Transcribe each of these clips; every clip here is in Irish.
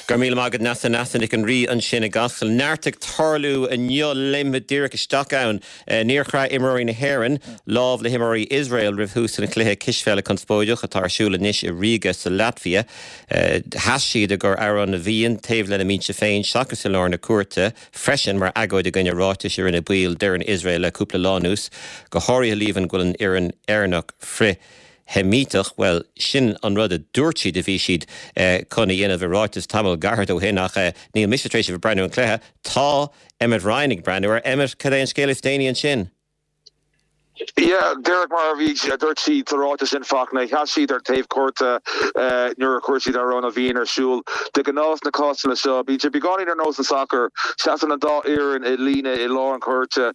Go raibh míle maith agat Neasa, Neasa Nic an Rí ansin i gCasla. Neart ag tarlú inniu léimfimid díreach isteach ann. Níor chraith imreoirí na hÉireann lámh le himreoirí Iosrael roimh thús an chluiche cispheile conspóideach atá ar siúl anois i Ríoga sa Laitvia. Sheas siad i gcomhair Amhrán na bhFiann taobh lena mbinse féin seachas i lár na cúirte freisin mar agóid i gcoinne ráitis a rinne baill d'fhoireann Iosrael le cúpla lá anuas, go háirithe líomhain go bhfuil an fhoireann Éireannach frith Sheimíteach, bhuel, sin an rud a dúirt siad a bhí siad chun a dhéanamh i ráiteas tamall gairid ó shin ach níl mise tar éis a bheith ag breathnú ar an chluiche. Tá Emmet Ryan ag breathnú air. Emmet, cad é an scéal is déanaí ansin? Yeah, díreach mar a bhí, a dúirt siad sa ráiteas sin, Fachtna, sheas siad ar taobh cúirte nuair a chuir siad Amhrán na bhFiann ar siúl. De ghnáth sna cásanna seo, bíonn sé beagáinín ar nós an sacar, seasann an dá fhoireann i líne i lár an chúirte,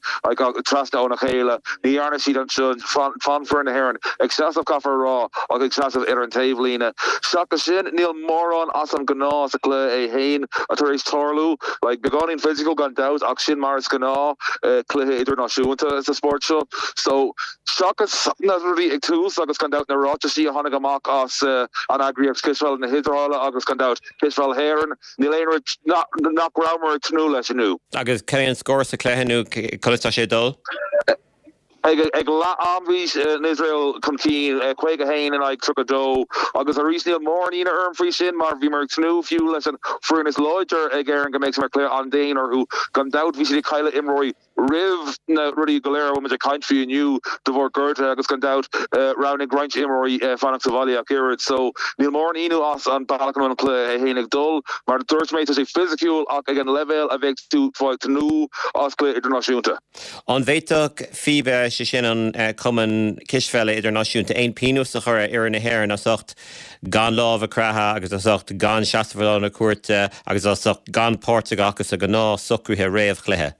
trasna óna chéile. Ní dhearna siad anseo. D'fhan foireann na hÉireann ag seasamh, caithfear a rá, ach ag seasamh ar an taobhlíne. Seachas sin, níl mórán as an ngnáth sa chluiche é féin tar éis tarlú. Like, beagáinín physical gan dabht, ach sin mar is gnáth cluiche idirnáisiúnta sa spórt seo. So, seachas na rudaí ag tús agus gan dabht na ráitisí a tháinig amach as an eagraíocht Cispheile na hIosraeile agus gan dabht Cispheil hÉireann, níl aon rud nach rabhamar ag tnúth leis inniu. Agus cad é an scór sa chluiche nó conas tá sé ag dul? Ag leath am bhí an Iosrael chun cinn, 51 in aghaidh 32, agus arís níl mórán ionadh orm faoi sin mar bhíomar ag tnúth fiú leis an foireann is láidir ag Éirinn go mbeadh sé mar chluiche an-dian orthu. Gan dabht bhí siad ag cailleadh imreoirí roimh na rudaí go léir a bhfuil muid ag caint faoi inniu de bharr gortuithe agus gan dabht roghnaigh roinnt imreoirí fanacht sa bhaile ach oiread. So níl mórán ionadh as an bealach a bhfuil an cluiche é féin ag dul. Mar a dúirt mé tá sé fisiciúil ach ag an leibhéal a bheadh tú ag tnúth as cluiche idirnáisiúnta. An bhféadfadh FIBA, sé sin an Cumann Cispheile Idirnáisiúnta, aon pionós a chur ar fhoireann na hÉireann as ucht gan lámh a chroitheadh agus as ucht gan seasamh i lár na cúirte agus as ucht gan páirt a ghlacadh sa ghnáth-socruithe réamh-chluiche?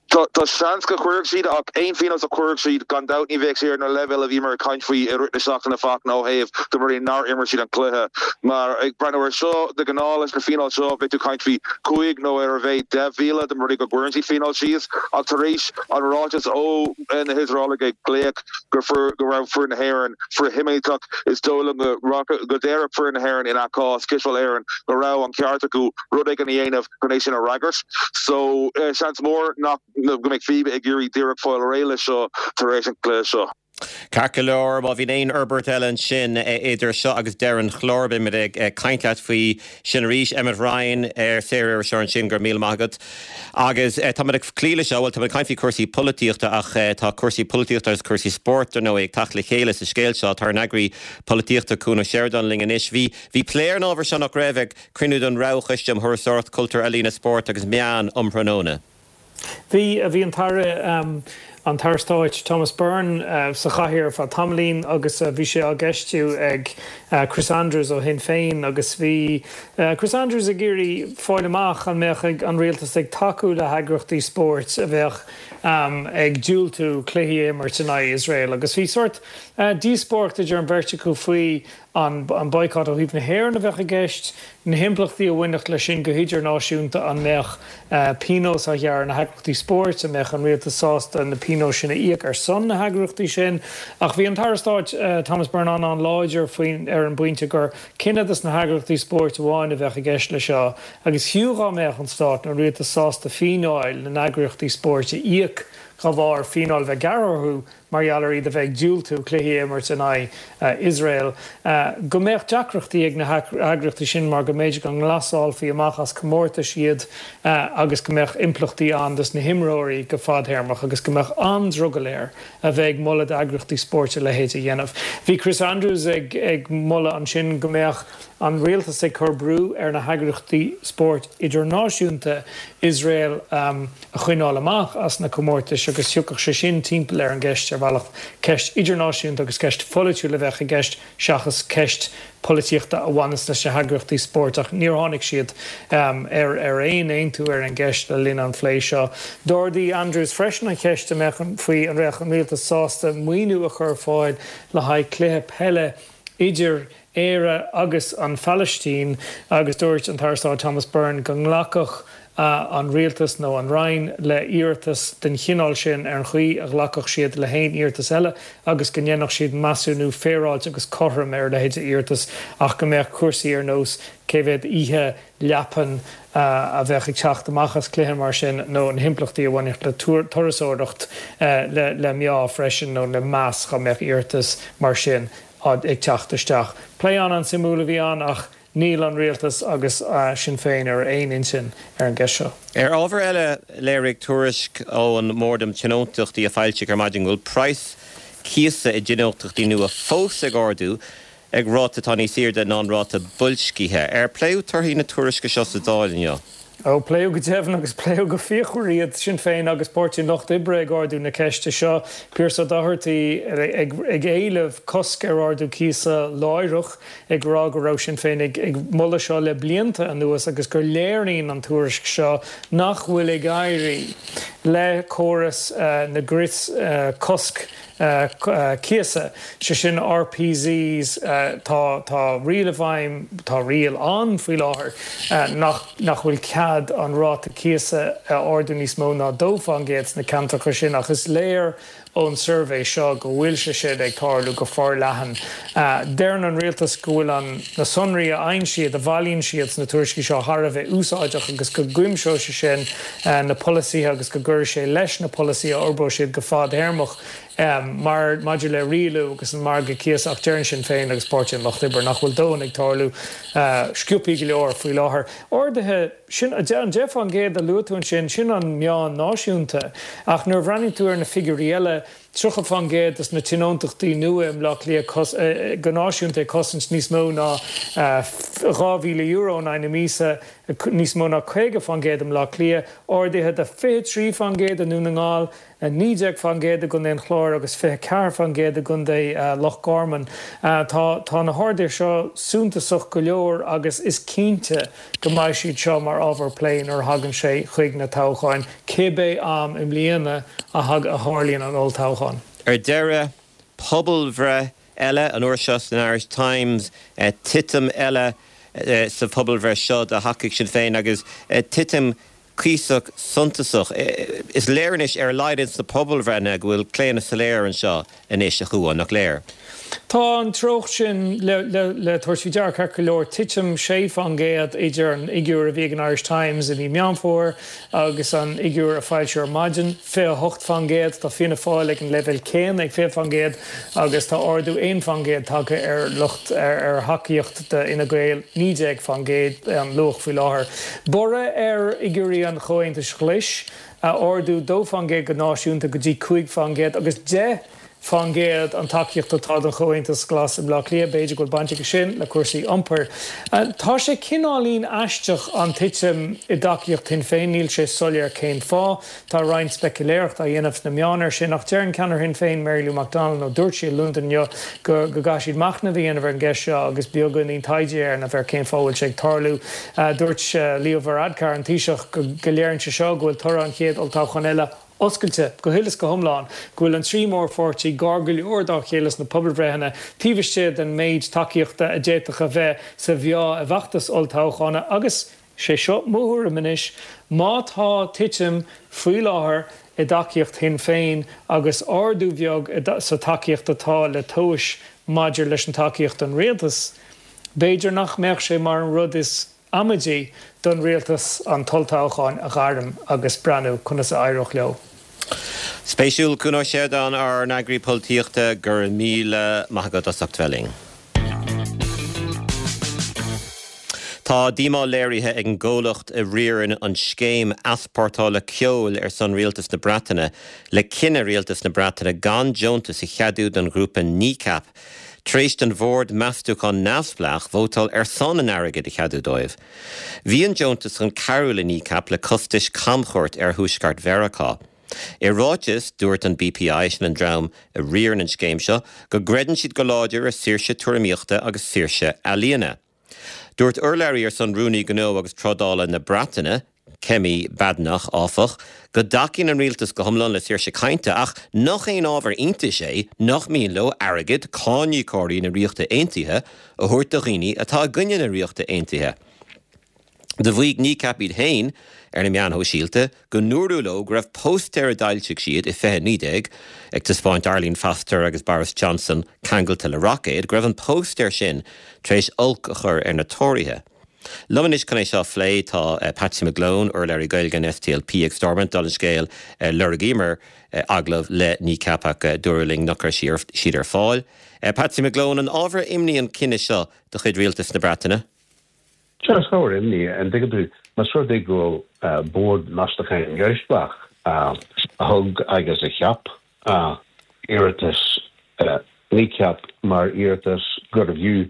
Tá seans go gcuirfeadh siad ach aon phionós a chuirfeadh siad, gan dabht ní bheadh sé ar na leibhéil a bhíomar ag caint faoi i rith na seachtaine Fachtna ó thaobh de rudaí nár imir siad an cluiche. Mar ag breathnú air seo, de ghnáth leis na fíneáil seo bheadh tú ag caint faoi chúig nó ar a mhéad 10,000 dá mba rud é go gcuireann siad fíneáil síos ach tar éis an ráiteas ó na hIosraelaigh ag glaoch go go raibh foireann na hÉireann frith-Sheimíteach is dóigh liom go go déarfadh foireann na hÉireann ina cás, Cispheil Éireann, go raibh an ceart acu rud éigin a dhéanamh chun é sin a fhreagairt. So seans mór nach go mbeidh FIBA ag iarraidh díreach fáil réidh leis seo tar éis an chluiche seo. Ceart go leor, má bhíonn aon fhorbairt eile ansin idir seo agus deireadh an chláir, beimid ag caint leat faoi sin arís. Emmet Ryan, saoririseoir ansin, go raibh míle maith agat. Agus táimid ag cloí leis seo, bhuel, táimid ag caint faoi chúrsaí polaitíochta ach tá cúrsaí polaitíochta agus cúrsaí spóirt, dar ndóigh, ag teacht le chéile sa scéal seo. Tá ár n-eagraí polaitíochta, Cuan Ó Seireadáin, linn anois. Bhí, bhí plé ar an ábhar seo, nach raibh, ag cruinniú den Roghchoiste um Thurasóireacht, Cultúr, Ealaíona, Spórt agus Meán um thráthnóna. Bhí, bhí an tAire, an tAire Stáit Thomas Byrne sa chathaoir ar feadh tamaillín agus bhí sé á gceistiú ag Chris Andrews ó Shinn Féin agus bhí Chris Andrews ag iarraidh fáil amach an mbeadh an rialtas ag tacú le heagraíochtaí spóirt a bheadh ag diúltú cluichí a imirt in aghaidh Iosrael agus bhí sórt díospóireacht idir an bheirt acu faoi an boycott ó thaobh na hÉireann a bheadh i gceist, na himpleachtaí a bhainfeadh leis sin go hidirnáisiúnta, an mbeadh pionós á ghearradh ar na heagraíochtaí spóirt, an mbeadh an rialtas sásta na pionóis sin a íoc ar son na heagraíochtaí sin. Ach bhí an tAire Stáit Thomas Byrne an-an-láidir faoin ar an bpointe gur cinneadh dos na heagraíochtaí spóirt amháin a bheadh i gceist leis seo agus fiú dhá mbeadh an Stát nó an rialtas sásta fíneáil na n-eagraíochtaí spóirt a íoc dá bharr fíneáil a bheith gearrtha orthu mar gheall ar iad a bheith ag diúltú cluichí a imirt in aghaidh Iosrael, go mbeadh deacrachtaí ag na heagraíochtaí sin mar go mb'fhéidir go nglasálfaí amach as comórtais iad agus go mbeadh impleachtaí ann dos na himreoirí go fadthéarmach agus go mbeadh an-drogall air a bheith ag moladh d'eagraíochtaí spóirt a leithéid a dhéanamh. Bhí Chris Andrews ag moladh ansin go mbeadh an rialtas ag cur brú ar na heagraíochtaí spóirt idirnáisiúnta Iosrael a choinneáil amach as na comórtais agus thiocfadh sé sin timpeall ar an gceist ar bhealach. Ceist idirnáisiúnta agus ceist pholaitiúil a bheadh i gceist seachas ceist polaitíochta a bhaineas leis na heagraíochtaí spóirt ach níor tháinig siad ar aon aontú ar an gceist le linn an phlé seo. D'ardaigh Andrews freisin an cheist an mbeadh faoi an mbeadh an rialtas sásta maoiniú a chur ar fáil le haghaidh cluiche peile idir Éire agus an Phalaistín agus dúirt an tAire Stáit Thomas Byrne go nglacfadh. an Rialtas nó an Roinn le hiarratas den chineál sin ar an chaoi a ghlacfadh siad le haon iarratas eile agus go ndéanfadh siad measúnú féaráilte agus cothrom ar a leithéid de iarratas ach go mbeadh cúrsaí ar nós cé mhéad oíche leapan a bheadh ag teacht amach as cluiche mar sin nó na himpleachtaí a bhainfeadh le turasóireacht le meá freisin nó le meas dá mbeadh iarratas mar sin ag teacht isteach. Plé an-an-suimiúil a bhí ann ach níl an Rialtas agus Sinn Féin ar aon intinn ar an gceist seo. Ar ábhar eile, léirigh tuairisc ón mBord um Tionóntachtaí a foilsíodh ar maidin go bhfuil praghas cíosa i dtionóntachtaí nua fós ag ardú ag ráta atá níos airde ná an ráta boilscithe. Ar pléadh torthaí na tuairisce seo sa Dáil inniu? Ó, pléadh go deimhin agus pléadh go fíochmhar iad, Sinn Féin agus Páirtí an Lucht Oibre ag ardú na ceiste seo, Pearse Doherty ag éileamh cosc ar ardú cíosa láithreach, ag rá go raibh Sinn Féin ag moladh seo le blianta anuas agus gur léiríonn an tuairisc seo nach bhfuil ag éirí le córas na gcrios cosc cíosa, sé sin RPZs, tá, tá riail i bhfeidhm, tá riail ann faoi láthair nach, nach bhfuil cead an ráta cíosa a ardú níos mó ná 2% sna ceantracha sin ach is léir ón suirbhé seo go bhfuil sé sin ag tarlú go forleathan. Deireann an rialtas go bhfuil an, na sonraí a fhaigheann siad, a bhailíonn siad sna tuairiscí seo thar a bheith úsáideach agus go gcuimseoidh sé sin na polasaithe agus go gcuirfidh sé leis na polasaithe a fhorbróidh siad go fadthéarmach mar maidir le rialú agus an margadh cíosa ach deireann Sinn Féin agus Páirtí an Lucht Oibre nach bhfuil dóthain ag tarlú sciobthaí go leor faoi láthair. Arduithe, sin an 10% a luaigh tú ansin, sin an meán náisiúnta ach nuair a bhreathnaíonn tú ar na figiúirí eile, 30% de na tionóntachtaí nua i mBleá Cliath go náisiúnta ag cosaint níos mó ná €2,000 in aghaidh na míosa, níos mó ná 50% i mBleá Cliath, arduithe de 23% i nDún na nGall, 19% i gContae an Chláir agus 24% i gContae Loch Garman. Tá tá na harduithe seo suntasach go leor agus is cinnte go mbeidh siad seo mar ábhar plé nuair a thagann sé chuig na toghcháin, cibé am i mbliana a tharlaíonn an olltoghchán. Ar deireadh, pobalbhreith eile, an uair seo san Irish Times, titim eile sa phobalbhreith seo do thacaíocht Sinn Féin agus titim cuíosach suntasach. Is léir anois, ar a laghad ins na pobalbhreitheanna, go bhfuil claonadh soiléir anseo anois, a Chuáin, nach léir? Tá an treocht sin le tabhairt faoi deara ceart go leor, titim 6% idir an fhigiúr a bhí ag an Irish Times i mí Meán Fómhair agus an fhigiúr a foilsíodh ar maidin, 28%. Tá Fianna Fáil ag an leibhéal céanna, ag 20%, agus tá ardú 1% tagtha ar lucht ar thacaíocht d'Fhine Gael, 19% an luach faoi láthair. Borradh ar fhigiúirí an Chomhaontais Ghlais, ardú 2% go náisiúnta go dtí 5% agus 10% an tacaíocht atá don Chomhaontas Glas i mBleá Cliath. B'fhéidir go bhfuil baint aige sin le cúrsaí iompair. Tá sé cineáilín aisteach an titim i dtacaíocht Shinn Féin, níl sé soiléir cén fáth. Tá roinnt speicealéireachta á dhéanamh sna meáin air sin ach deireann ceannaire Shinn Féin, Mary Lou McDonald, nó dúirt sí i Londain inniu, go gcaithfidh siad machnamh a dhéanamh ar an gceist seo agus beagáinín taighde a dhéanamh ar cén fáth a bhfuil sé ag tarlú. Dúirt Leo Varadkar, an Taoiseach, go léiríonn sé seo go bhfuil toradh an chéad olltoghcháin eile oscailte go huile is go hiomlán, go bhfuil an trí mhórpháirtí gar go leor dá chéile sna pobalbhreitheanna, taobh istigh den méid tacaíochta a d'fhéadfadh a bheith sa mheá i bhfeachtas olltoghcháin agus Sé seo mo thuairim anois, má tá titim faoi láthair i dtacaíocht Shinn Féin agus ardú bheag sa tacaíocht atá le tomhais maidir leis an tacaíocht don rialtas, b'fhéidir nach mbeadh sé mar an rud is amaidí don rialtas an t-olltoghchán a ghairm agus breathnú conas a éireodh leo. Spéisiúil, Cuan Ó Seireadáin, ár n-eagraí polaitíochta, go raibh míle maith agat as ucht bheith linn. Tá díomá léirithe ag an gcomhlacht a riarann an scéim easpórtála ceoil ar son Rialtas na Breataine le cinneadh Rialtas na Breataine gan deontas a cheadú don ghrúpa Kneecap tar éis don bhord meastúcháin neamhspleách vótáil ar son an airgid a cheadú dóibh. Bhí an deontas chun cabhrú le Kneecap le costais camchuairt ar thuaisceart Mheiriceá. I ráiteas, dúirt an BPI, sin an dream a riarann an scéim seo, go gcreideann siad go láidir i saoirse tuairimíochta agus saoirse ealaíona. Dúirt urlabhraí ar son Rúnaí Gnó agus Trádála na Breataine, Kemi Badenoch, áfach, go dtacaíonn an rialtas go hiomlán le saoirse cainte ach nach aon ábhar iontais é nach mian leo airgead cáiníocóirí na Ríochta Aontaithe a thabhairt do dhaoine atá i gcoinne na Ríochta Aontaithe. Do mhaígh Kneecap iad féin ar na meáin shóisialta go ndúradh leo go raibh póstaer a d'fhoilsigh siad i 2019, ag taispeáint Arlene Foster agus Boris Johnson ceangailte le roicéad, go raibh an póstaer sin tar éis olc a chur ar na Tóraithe. Liom anois chun é seo a phlé tá Patsy McGlone, urlabhraí Gaeilge an SDLP ag Stormont. Dála an scéil, lorgaíomar agallamh le Kneecap ach dúradh linn nach raibh siad ar fáil. Patsy McGlone, an ábhar imní an cinneadh seo de chuid Rialtas na Breataine? Sea, is ábhar imní, an dtuigeann tú, más rud é go bhfuil Bord Meastacháin Neamhspleách a thug agus a cheap iarratas Kneecap mar iarratas gurbh fhiú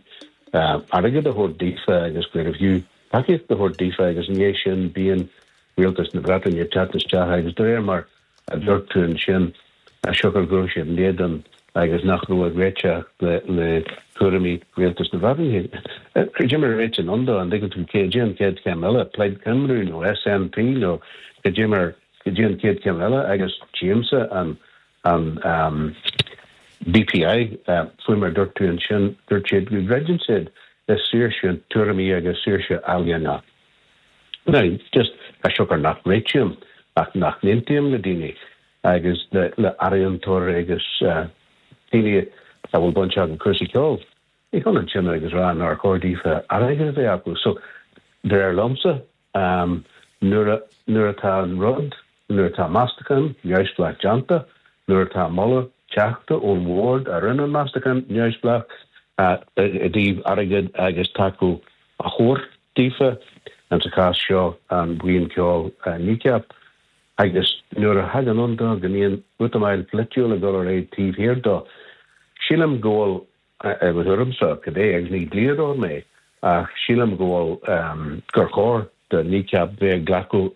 airgead a thabhairt daofa agus gurbh fhiú tacaíocht a thabhairt daofa agus i ndiaidh sin bíonn Rialtas na Breataine ag teacht isteach agus de réir mar a dúirt tú ansin, siocair go raibh siad in éadan agus nach raibh ag réiteach le tuairimí Rialtas na Breataine. Cad é mar a réitíonn ann dó, an dtuigeann tú, cad é an chéad chéim eile, Plaid Cymru nó SNP nó cad é mar, cad é an chéad chéim eile agus tchímse an an BPI, faoi mar a dúirt tú ansin, dúirt siad go gcreideann siad i saoirse tuairimí agus saoirse ealaíona. Now, just, as siocair nach réitím ach nach n-aontaím le daoine agus le ealaíontóirí agus daoine a bhfuil baint acu cúrsaí ceoil, ní hionann sin agus rá nár chóir daofa airgead a bheith acu. So, de réir liomsa, nuair a, nuair atá an rud, nuair atá meastachán neamhspleách déanta, nuair atá moladh teachta ón bhord a rinne an meastachán neamhspleách i dtaobh airgead agus tacú a thabhairt daofa, in sa chás seo an bhuíon ceoil Kneecap, agus nuair a thagann ann dó go mbíonn útamáil pholaitiúil ag dul ar aghaidh taobh thiar dó, sílim go bhfuil, i mo thuairimse, cibé, agus ní dlíodóir mé, ach sílim go bhfuil, gur chóir do Kneecap bheith ag glacadh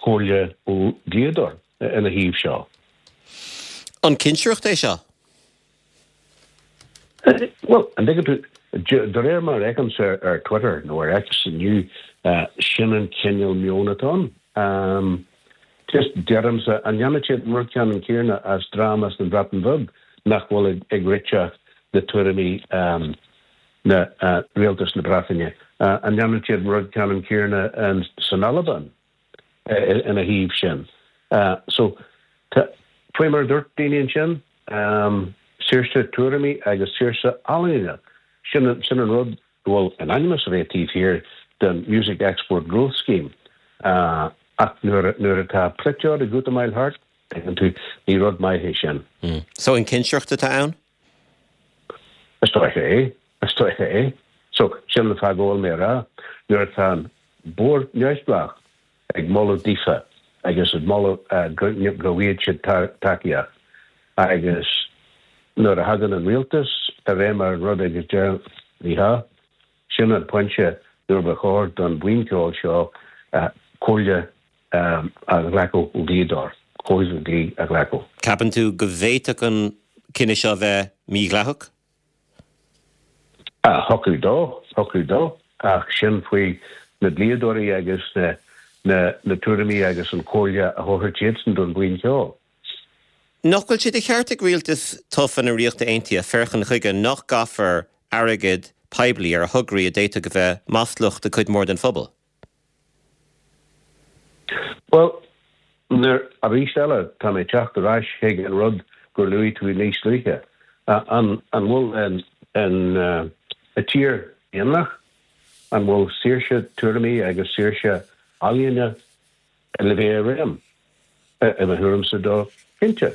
comhairle ó dhlíodóir ina thaobh seo. An cinsireacht é seo? Bhuel, an dtuigeann tú, de réir mar a fheicimse ar Twitter nó ar X inniu, sin an cineál meoin atá ann. Just, deirimse, an ndéanfaidh siad an rud ceannann céanna as dream as an Bhreatain Bheag nach bhfuil ag réiteach le tuairimí na rialtas na Breataine? An ndéanfaidh siad an rud ceannann céanna san Albain? ina thaobh sin. So, tá, faoi mar a dúirt daoine ansin, saoirse tuairimí agus saoirse ealaíne, sin, sin an rud go bhfuil in ainm is a bheith taobh thiar den Music Export Growth Scheme. Ach nuair, nuair atá polaiteoir ag útamáil thart, tuigeann tú, ní rud maith é sin. So, an cinsireacht atá ann? Is dóiche é. Is dóiche é. So, sin an fáth go bhfuil mé a rá, nuair atá an Bord Neamhspleách ag moladh daofa agus ag moladh go bhfaighidh siad tacaíocht agus nuair a thagann an rialtas i réim ar an rud agus deir ní hea, sin an pointe nuair ba chóir don bhuíon ceoil seo comhairle a ghlacadh ó dhlíodóir, comhairle dlí a ghlacadh. Ceapann tú go bhféadfadh an cinneadh seo a bheith mídhleathach? Thiocfadh dó, thiocfadh dó, ach sin faoi na dlíodóirí agus na na tuairimí agus an chomhairle a thabharfaidh siadsan don bhuíon cheoil. Nach bhfuil sé de cheart ag rialtas tofa na Ríochta Aontaithe féachaint chuige nach gcaithfear airgead poiblí ar thograí a d'fhéadfadh a bheith maslach do chuid mhór den phobal? Bhuel, nuair, arís eile, tá mé ag teacht ar ais chuig an rud gur luaigh tú níos luaithe. An, an bhfuil an, an, an tír daonlathach? An bhfuil saoirse tuairimí agus saoirse ealaíne le bheith i réim? I mo thuairimse dó, cinnte.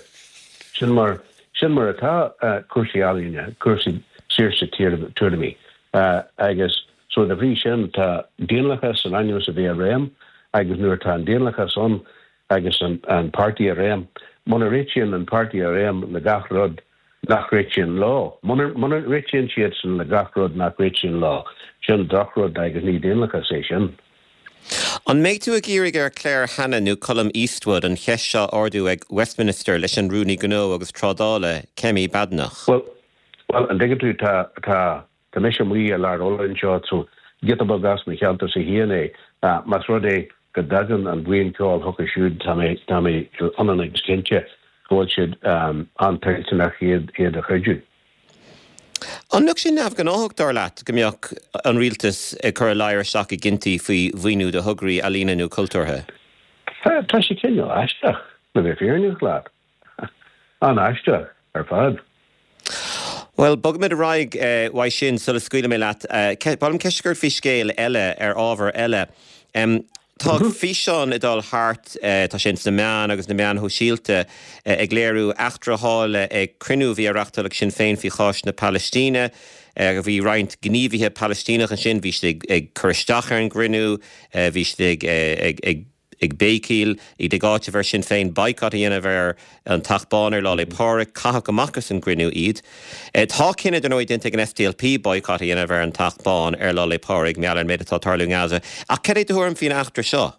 Sin mar, sin mar atá cúrsaí ealaíne, cúrsaí saoirse tuairimí. Agus so de bhrí sin tá daonlathas in ainm is a bheith i réim agus nuair atá an daonlathas ann agus an, an páirtí i réim, muna réitíonn an páirtí i réim le gach rud nach réitíonn leo, muna, muna réitíonn siadsan le gach rud nach réitíonn leo, sin drochrud agus ní daonlathas é sin. An mbeidh tú ag iarraidh ar Claire Hanna nó Colum Eastwood an cheist seo a ardú ag Westminster leis an Rúnaí Gnó agus Trádála, Kemi Badenoch? Bhuel, bhuel, an dtuigeann tú, tá, tá, tá mise amuigh i lár Uladh anseo, so giota beag as mo cheantarsa féin é. Más rud é go dtagann an bhuíon ceoil chucu siúd, tá mé, tá mé ionann agus cinnte go bhfuil siad an-toilteanach iad, iad a chuidiú. An mbeadh sé neamhghnáthach, dar leat, go mbeadh an rialtas ag cur a ladhar isteach i gcinntí faoi mhaoiniú do thograí ealaíne nó cultúrtha? Tá sé cineál aisteach, le bheith fírinneach leat. An-aisteach ar fad. Bhuel, bogfaimid ar aghaidh uaidh sin sula scaoilfidh mé leat. Ba mhaith liom ceist a chur ort faoi scéal eile, ar ábhar eile. Tá físeán ag dul thart, tá sé ins na meáin agus na meáin shóisialta, ag léiriú eachtra a tharla ag cruinniú a bhí á reachtáil ag Sinn Féin faoi chás na Palaistíne. Bhí roinnt gníomhaithe Palaistíneach ansin, bhí siad ag cur isteach ar an gcruinniú, bhí siad ag ag béicíl, iad ag áiteamh ar Sinn Féin boycott a dhéanamh ar an Teach Bán ar Lá 'le Pádraig. Caitheadh amach as an gcruinniú iad. Tá cinneadh, dar ndóigh, déanta ag an SDLP boycott a dhéanamh ar an Teach Bán ar Lá 'le Pádraig, mar gheall ar an méid atá ag tarlú i nGaza. Ach cad é do thuairim faoin eachtra seo?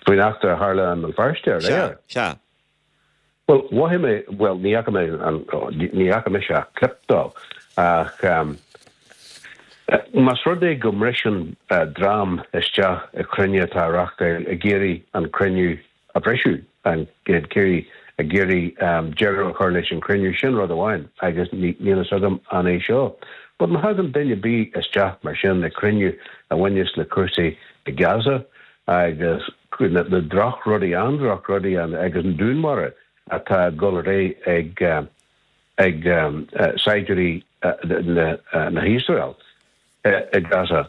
Faoin eachtra a tharla i mBéal Feirste aréir? Sea, sea. Bhuel, mhothaigh mé, bhuel, ní fhaca mé an, ní fhaca mise ach clip dó, ach más rud é go mbriseann dream isteach i cruinniú atá á reachtáil ag iarraidh an cruinniú a bhriseadh, ag iarraidh, ag iarraidh deireadh a chur leis an chruinniú, sin rud amháin agus níl fhios agam an é seo. But má thagann duine ar bith isteach mar sin i cruinniú a bhaineas le cúrsaí i Gaza agus na drochrudaí, an-drochrudaí agus an dúnmharú atá ag dul ar aghaidh ag ag saighdiúirí na hIosrael i Gaza.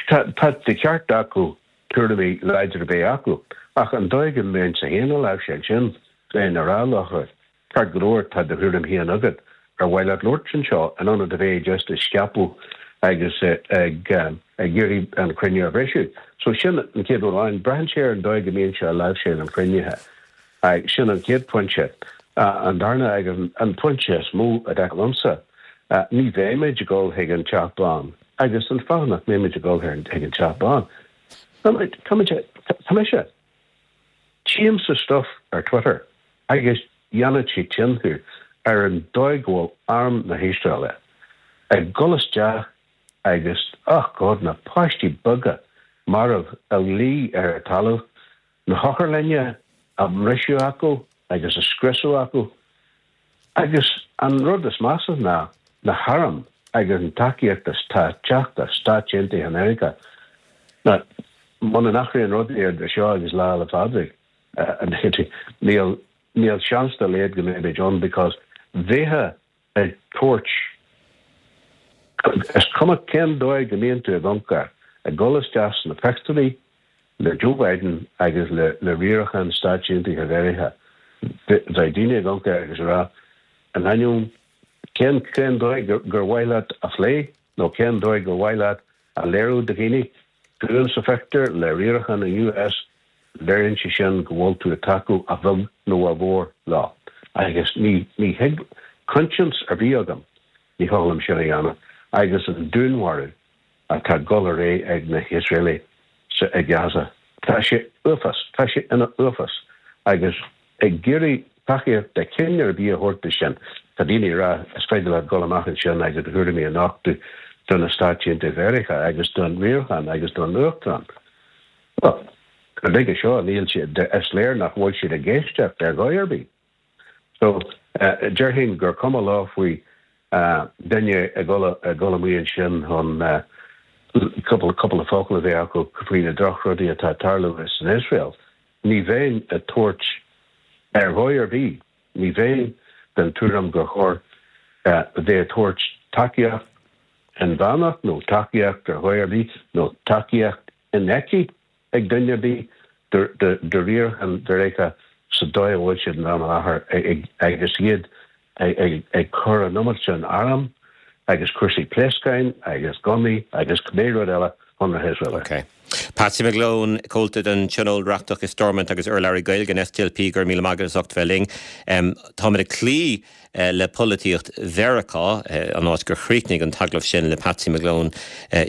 Tá de cheart acu tuairimí láidre a bheith acu, ach an dóigh go mbeinnse féin á láimhseáil sin, bheinn ag rá leo, Ceart go leor, tá do thuairim féin agat. Ar mhaith leat labhairt anseo in ionad a bheith just ag scaipeadh agus ag iarraidh an cruinniú a bhriseadh? So sin an chéad rud amháin. Braitheann sé ar an dóigh go mbíonn sé á láimhseáil an chruinnithe. Sin an chéad phointe. An darna agus an pointe is mó a dar liomsa, ní bheimid ag dul chuig an Teach Bán. Agus an fáth nach mbeimid ag dul chuig an Teach Bán, táimid, tá mise, Tchímse stuff ar Twitter agus dhéanfadh sé tinn thú ar an dóigh go bhfuil arm na hIosraeile ag dul isteach agus, oh God, na páistí beaga marbh a luí ar an talamh, na hotharlainne á mbriseadh acu agus á scriosadh acu. Agus an rud is measa ná na hairm agus an tacaíocht atá ag teacht as Stáit Aontaithe Mheiriceá. Now, muna n-athraíonn rudaí idir seo agus Lá 'le Phádraig, níl, níl seans dá laghad go mbeimid ann because bheifeá ag tabhairt, is cuma cén dóigh go mbíonn tú ag amharc air, ag dul isteach sna pictiúirí le Joe Biden agus le riarachán Stáit Aontaithe Mheiriceá, bheadh daoine ag amharc air agus ag rá, in ainneoin cén cén dóigh gur mhaith leat a phlé nó cén dóigh gur mhaith leat a léiriú do dhaoine, tú sa phictiúr le riarachán an US, léiríonn sé sin go bhfuil tú ag tacú a bheag nó a mhór leo. Agus ní ní thig coinsias ar bith agam, ní thig liom sin a dhéanamh. Agus an dúnmharú atá ag dul ar aghaidh ag na hIosraelaigh sa i Gaza. Tá sé uafás, tá sé ina uafás. Agus ag iarraidh tacaíocht de chineál ar bith a thabhairt do sin, tá daoine ag rá is féidir leat dul amach ansin agus do thuairimí a nochtadh do na Stáit Aontaithe Mheiriceá agus don riarachán agus don Uachtarán. Bhuel, go nuige seo níl siad, is léir nach bhfuil siad ag éisteacht ar dhóigh ar bith. So, déarfainn gur cuma leo faoi duine ag dul amuigh ansin chun cúpla focal a bheith acu faoi na drochrudaí atá ag tarlú san Iosrael. Ní bheinn ag tabhairt ar dhóigh ar bith, ní bheinn den tuairim gur chóir bheith ag tabhairt tacaíocht inmheánach nó tacaíocht ar dhóigh ar bith nó tacaíocht infheicthe ag duine ar bith do riarachán Mheiriceá sa dóigh a bhfuil siad in am i láthair agus iad ag cur an iomad sin arm agus cúrsaí pléascáin agus gunnaí agus cibé rud eile chun na hIosraeile. Ok. Patsy McGlone, Comhalta den Tionól Reachtach i Stormont agus urlabhraí Gaeilge an SDLP, go raibh míle maith agat as ucht bheith linn. Táimid ag cloí le polaitíocht Mheiriceá, an áit gur chríochnaigh an t-agallamh sin le Patsy McGlone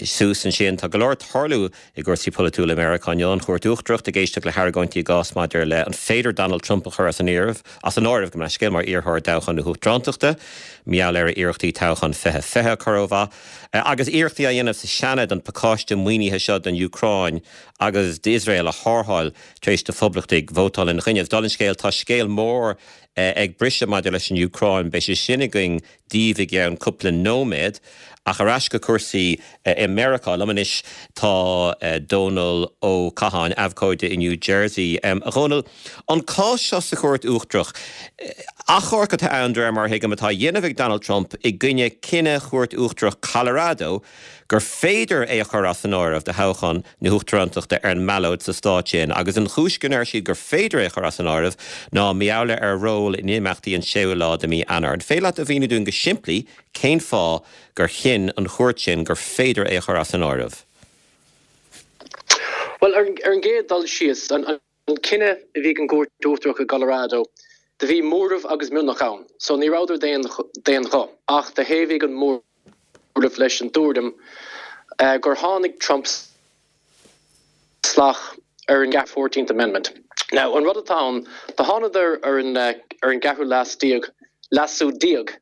suas ansin. Tá go leor ag tarlú i gcúrsaí polaitiúla i Meiriceá inniu, an Chúirt Uachtarach ag éisteacht le hargóintí i gcás maidir le an féidir Donald Trump a chur as an áireamh, as an áireamh, gabh mo leithscéal, mar iarrthóir i dtoghchán na huachtarántachta, mar gheall ar a iarrachtaí toghchán 2020 a chur ó mhaith, agus iarrachtaí á dhéanamh sa Seanad an pacáiste maoinithe seo don Úcráin agus d'Iosrael a tharrtháil tar éis do phoblachtaigh vótáil ina choinne. Agus dála an scéil, tá scéal mór. ag briseadh maidir leis an Úcráin. Beidh sé sin againn daoibh i gceann cúpla nóiméad. Ach ar ais go cúrsaí i Meiriceá. Liom anois tá Dónal Ó Catháin, abhcóide i New Jersey. A Dhónaill, an cás seo sa Chúirt Uachtarach, achomharc atá ann, de réir mar a thuigim, atá á dhéanamh ag Donald Trump i gcoinne cinneadh Chúirt Uachtarach Colorado gur féidir é a chur as an áireamh do thoghchán na huachtarántachta ar an mballóid sa stát sin agus an chúis go ndeir siad gur féidir é a chur as an áireamh ná mar gheall ar a ról in imeachtaí an séú lá de mhí Eanáir. An féidir leat a mhíniú dúinn go simplí cén fáth gur chinn an chúirt sin gur féidir é a chur as an áireamh? Bhuel, ar an gcéad dul síos, an cinneadh a bhí ag an gCúirt Uachtarach i gColorado, do bhí móramh agus mionlach ann, so ní rabhadar d'aon ghuth, ach do thaobhaigh an móramh leis an dtuairim gur tháinig Trump salach ar an Fourteenth Amendment. Now, an rud atá ann, do thánadar ar an ar an gceathrú leas déag, leasú déag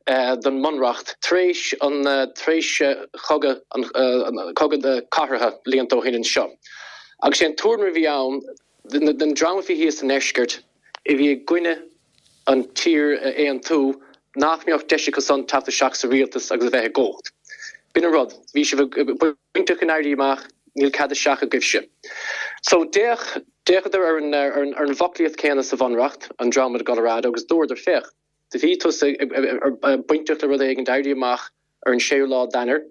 den mBunreacht tar éis an tar éis chogadh an cogadh cathartha blianta ó shin anseo. Agus sé an tuairim a bhí ann den dream a bhí thíos sa ndeisceart a bhí i gcoinne an tír a aontú nach mbeadh deis acu san teacht isteach sa rialtas agus a bheith i gcumhacht. B'in an rud. Bhí sibh bainteach in Éirí Amach, níl cead isteach agaibhse. So d'fhéach, d'fhéachadar ar an, ar an, ar an bhfoclaíocht céanna sa Bhunreacht, an dream i gColorado, agus dúradar, féach, do bhí tusa bainteach le rud éigin d'éirí amach ar an séú lá d'Eanáir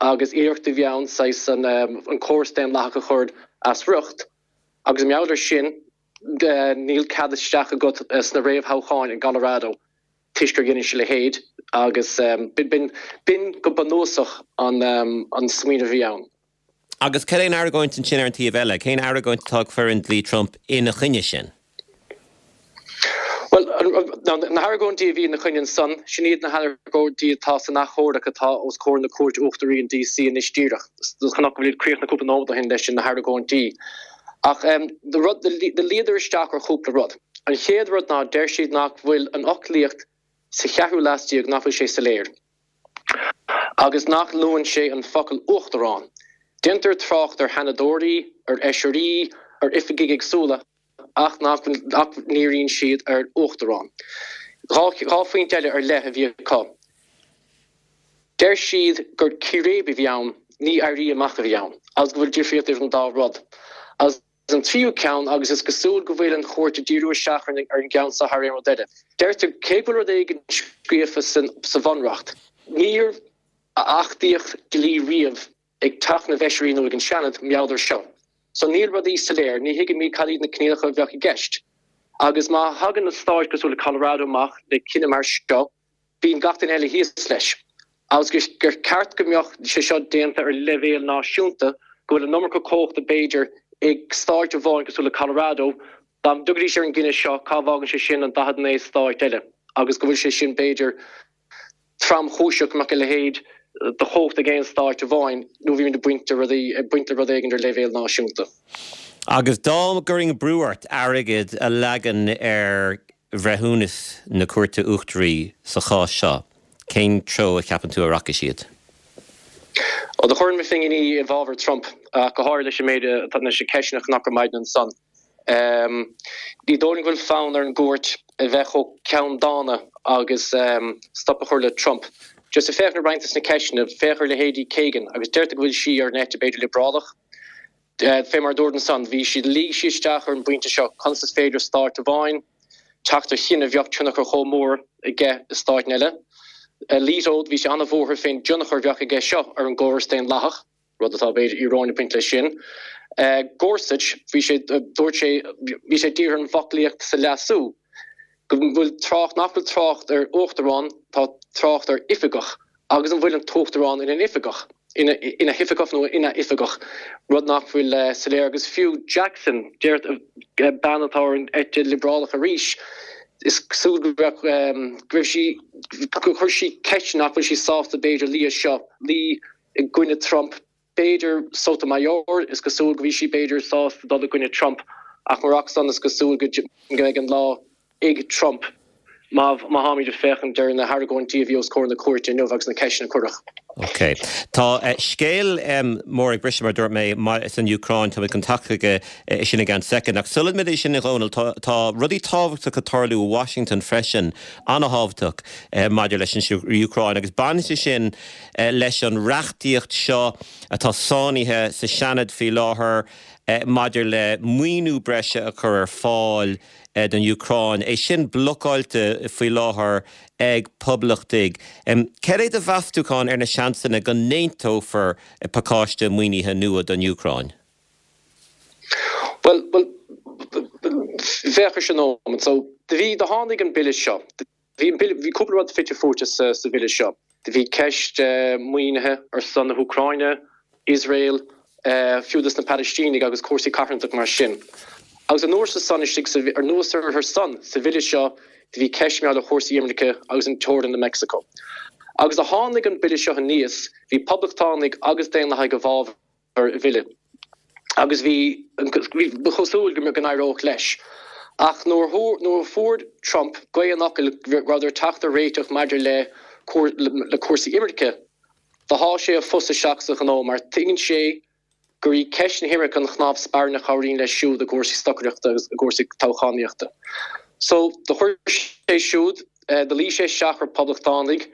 agus iarracht a bhí ann saghas an, an córas daonlathach a chur as riocht agus i ngeall air sin, níl cead isteach agat sna réamhthoghcháin i gColorado toisc gur dheinis a leithéid agus b'in go bunúsach an smaoineamh a bhí ann. Agus cad é an argóint ansin ar an taobh eile? Cén argóint atá ag foireann dlí Trump ina choinne sin? Bhuel, na hargóintí a bhí ina choinne ansan, sin iad na hargóintí atá san achomharc atá os comhair na Cúirte Uachtaraí in DC anois díreach. Chonac go bhfuil críochnaithe cúpla nóiméad ó shin leis na hargóintí. Ach do luíodar isteach ar chúpla rud. An chéad rud ná deir siad nach bhfuil an fhoclaíocht sa cheathrú leas déag, nach bhfuil sé soiléir. Agus nach luann sé an focal uachtarán. Déantar trácht ar sheanadóirí, ar fheisirí, ar oifigigh éagsúla ach nach ndíríonn siad ar uachtarán. 2 phointe eile ar leith a bhí acu. Deir siad gur círéib a bhí ann, ní éirí amach a bhí ann, agus go bhfuil difríocht idir an dá rud. Agus an tríú ceann, agus is cosúil go bhfuil an chúirt ag díriú isteach ar an gceann seo thar aon rud eile, deirtear cé go bhfuil rud éigin scríofa sa Bhunreacht, níor achtaíodh dlí riamh ag Teach na bhFeisirí nó ag an Seanad mar gheall air seo. So níl rudaí soiléir, ní thuigimid cad iad na coinníollacha a bheadh i gceist. Agus má thagann na stáit cosúil le Colorado amach le cinneadh mar seo, bíonn gach duine eile thíos leis. Agus gur ceart go mbeadh sé seo déanta ar leibhéal náisiúnta, go bhfuil an iomarca cumhachta b'fhéidir ag stáit amháin cosúil le Colorado, dá dtiocfaidís ar an gcinneadh seo, cá bhfágann sé sin an 49 stáit eile? Agus go bhfuil sé sin b'fhéidir tromchúiseach go mbeadh a leithéid de chumhacht ag aon stáit amháin nó bhímid ag baint de rudaí, ag baint le rud éigin ar leibhéal náisiúnta. Agus dá gcuirfinn brú ort airgead a leagan ar bhreithiúnas na Cúirte Uachtaraí sa chás seo, cén treo a cheapann tú a rachaidh siad? Ó, do chuirfinn mo phinginí i bhfabhar Trump, ach go háirithe leis an méid atá leis na ceisteanna a chonac ar maidin ansan. Ní dóigh liom go bhfuil fonn ar an gcúirt a bheith chomh ceanndána agus stop a chur le Trump. Just ag féachaint ar roinnt des na ceisteanna, féach ar leithéidí Kagan agus deirtear go bhfuil sí ar an eite b'fhéidir liobrálach. Fé mar a dúrt ansan, bhí siad, luigh siad isteach ar an bpointe seo, conas is féidir stáit amháin teacht ar chinneadh a bheadh tionchar chomh mór aige i stáit eile. Alito, bhí sé an-bhuartha fén dtionchar a bheadh aige seo ar an gcóras daonlathach, rud atá b'fhéidir íoróin ag baint leis sin. Gorsuch, bhí sé, dúirt sé, bhí sé dírithe ar an bhfoclaíocht sa leasú, go bhfuil trácht, nach bhfuil trácht ar uachtarán, tá trácht ar oifigeach. Agus an bhfuil an tUachtarán ina oifigeach, ina hoifigeach nó ina oifigeach, rud nach bhfuil soiléir. Agus fiú Jackson, deir bean atá ar an eite liobrálach arís, is cosúil go raibh, go raibh sí, gur chuir sí ceist nach bhfuil sí sásta b'fhéidir luí as seo, luí i gcoinne Trump. B'fhéidir Sotomayor, is cosúil go bhí sí b'fhéidir sásta dul i gcoinne Trump, ach murach san is cosúil go mbeidh an lá ag Trump má má tháimid ag féachaint ar na hargóintí a bhí os comhair na cúirte inniu agus na ceisteanna a cuireadh. Ok. Tá scéal mór ag briseadh, mar a dúirt mé, san Úcráin. Tá mé chun teacht chuige sin i gceann soicind. Ach sula mbeidh sin, a Dhónaill, tá rudaí tábhachtacha ag tarlú i Washington freisin, an-thábhachtach maidir leis an Úcráin. Agus baineann sé sin leis an reachtaíocht seo atá sáinnithe sa Seanad faoi láthair maidir le maoiniú breise a chur ar fáil don Úcráin. É sin blocáilte faoi láthair ag Poblachtaigh. Cad é do mheastúchán ar na seansanna go n-aontófar pacáiste maoinithe nua don Úcráin? Bhuel, bhuel, féach ar sin nóiméad. So, do bhí, do tháinig an bille seo, do bhí an bille, bhí cúpla rud fite fuaite sa, sa bhille seo. Do bhí ceist maoinithe ar son na hÚcráine, Iosrael, fiú dos na Palaistínigh agus cúrsaí carthanachta mar sin. Agus anuas ar san istigh sa, anuas ar san, sa bhille seo, do bhí ceist mar gheall ar chúrsaí imirce agus an teorainn le Meicsiceo. Agus do tháinig an bille seo aníos, bhí poblachtánaigh agus daonlathaigh i bhfabhar an bhille agus bhí, ba chosúil go n-éireodh leis. Ach nuair a fuair Trump gaoth an fhocail go rabhadar ag teacht ar réiteach maidir le le cúrsaí imirce, Do sháigh sé a phus isteach sa ghnó mar tuigeann sé gur í ceist na himirce an chnámh spairne a chabhraíonn leis siúd i gcúrsaí stocaireachta agus i gcúrsaí toghchánaíochta. So, do chuir sé siúd, do luigh sé isteach ar poblachtánaigh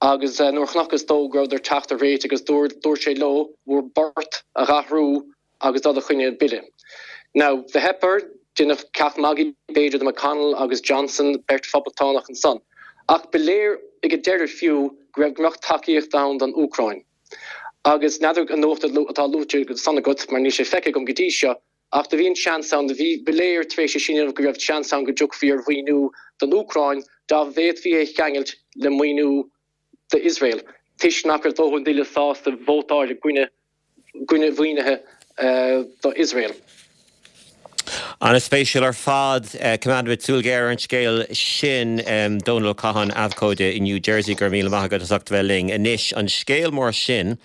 agus nuair a chonacthas dó go rabhadar ag teacht ar réiteach agus dúirt sé leo bhur bport a dh'athrú agus dul i choinne an bille. Now, do theip air, deineadh ceacht magaidh b'fhéidir de McConnell agus Johnson, beirt phoblachtánach ansan. Ach ba léir ag an deireadh fiú go raibh go mbeadh tacaíocht ann don Úcráin. Agus n'fheadar an nuacht atá luaite ansan agat, mar níl sé feicthe agam go dtí seo, ach do bhí an seans ann, do bhí, ba léir tar éis é sin a dhéanamh go raibh seans ann go dtiocfaí ar mhaoiniú don Úcráin dá bhféadfaí é a cheangailt le maoiniú d'Iosrael, toisc nach raibh dóthain daoine sásta vótáil i gcoinne gcoinne mhaoinithe do Iosrael. An-spéisiúil ar fad. Coimeádfaimid súil ghéar ar an scéal sin. Dónal Ó Catháin, abhcóide i New Jersey, go raibh míle maith agat as ucht a bheith linn. Anois, an scéal mór sin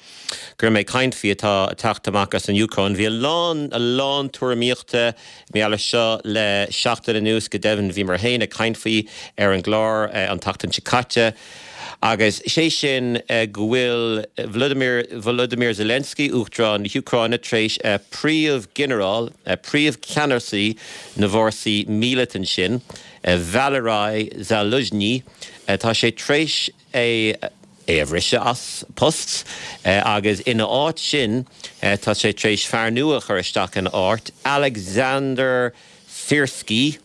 go raibh mé ag caint faoi atá ag teacht amach as an Úcráin. Bhí a lán, a lán tuairimíochta mar gheall air seo le seachtain anuas, go deimhin bhíomar féin ag caint faoi ar an gclár an tseachtain seo caite. Agus sé sin go bhfuil Vladimir Volodymyr Zelensky, Uachtarán na hÚcráine, tar éis príomh-ghinearál, príomh-cheannasaí na bhfórsaí míleata ansin, Valery Zaluzhny, tá sé tar éis é a bhriseadh as post agus ina áit sin tá sé tar éis fear nua a chur isteach ina áit, Alexander Syrskyi.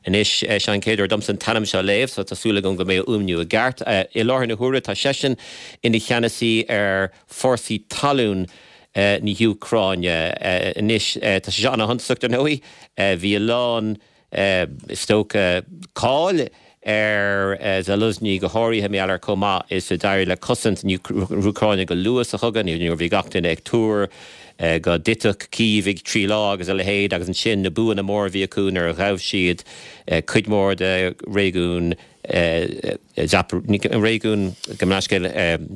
Anois, seo an chéad uair domsa an t-ainm seo a léamh, so tá súil agam go mbeidh a fhuaimniú i gceart. I láthair na huaire, tá seisean ina cheannasaí ar fórsaí talún na hÚcráine. Anois, tá sé seo ana-shuntasach, dar ndóigh. Bhí a lán, is dócha, cáil ar Zaluzhny, go háirithe mar gheall ar chomh maith is a d'éirigh le cosaint na hÚcráine go luath sa chogadh, nuair a bhí gach duine ag tuar go dtitfeadh Cív i dtrí lá agus a leithéid, agus ansin na buanna móra a bhí acu nuair a ghabh siad cuid mhór de réigiún réigiún, gabh mo leithscéal,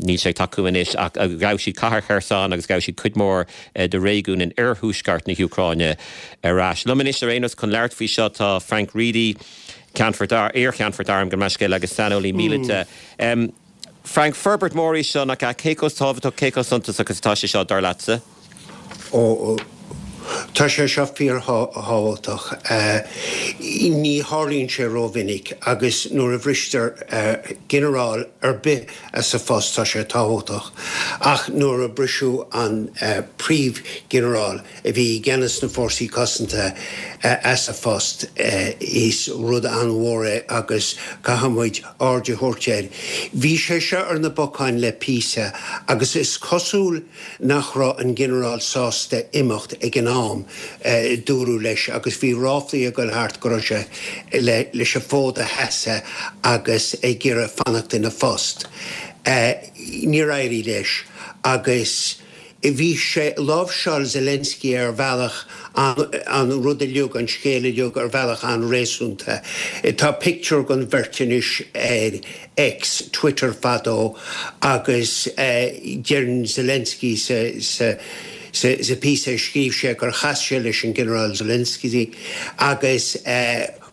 níl sé ag tacú anois, ach ghabh siad cathair Kherson agus ghabh siad cuid mhór de réigiún in oirthuaisceart na hÚcráine ar ais. Liom anois ar aon nós chun labhairt faoi seo tá Frank Reidy, Ceannfort, iar-cheannfort airm, gabh mo leithscéal, agus saineolaí míleata. Frank, Forbairt mhór í seo, nach ea? Cé chomh tábhachtach, cé chomh suntasach is atá sé seo, dar leatsa? Ó, tá sé seo fíorthábhachtach. Ní tharlaíonn sé rómhinic agus nuair a bhristear ginearál ar bith as a phost tá sé tábhachtach. Ach nuair a briseadh an príomhghinearál, a bhí i gceannas na Fórsaí Cosanta as a phost. Is rud an-mhór é agus caithfidh muid aird a thabhairt air. Bhí sé seo ar na bacáin le píosa agus is cosúil nach raibh an Ginearál sásta imeacht ag an am a dúradh leis agus bhí ráflaí ag dul thart go raibh sé leis an bhfód a sheasamh agus ag iarraidh fanacht ina phost. Níor éirigh leis agus. Bhí sé, láimhseáil Zelensky ar bhealach an rud uilig, an scéal uilig ar bhealach an-réasúnta. Tá pictiúr den bheirt anois ar X, Twitter fadó, agus deireann Zelensky sa sa píosa a scríobh sé gur chas sé leis an Ginearál Zelensky agus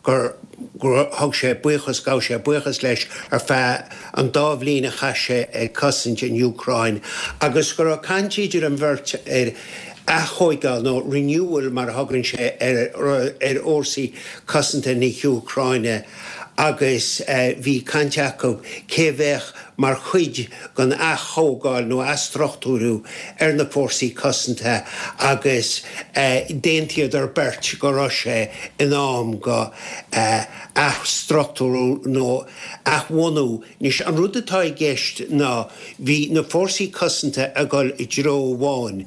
gur. Gur thug sé buíochas, ghabh sé buíochas leis ar feadh an dá bhliain a chaith sé ag cosaint an Úcráin agus go raibh caint idir an bheirt ar aththóigeáil nó renewal mar a thugann sé ar ar fhórsaí cosanta na hÚcráine agus bhí caint acu cé a bheadh mar chuid den aththógáil nó athstruchtúrú ar na fórsaí cosanta agus d'aontaíodar beirt go raibh sé in am go athstruchtúrú nó athbhunú. Anois, an rud atá i gceist ná bhí na fórsaí cosanta ag dul i dtreo amháin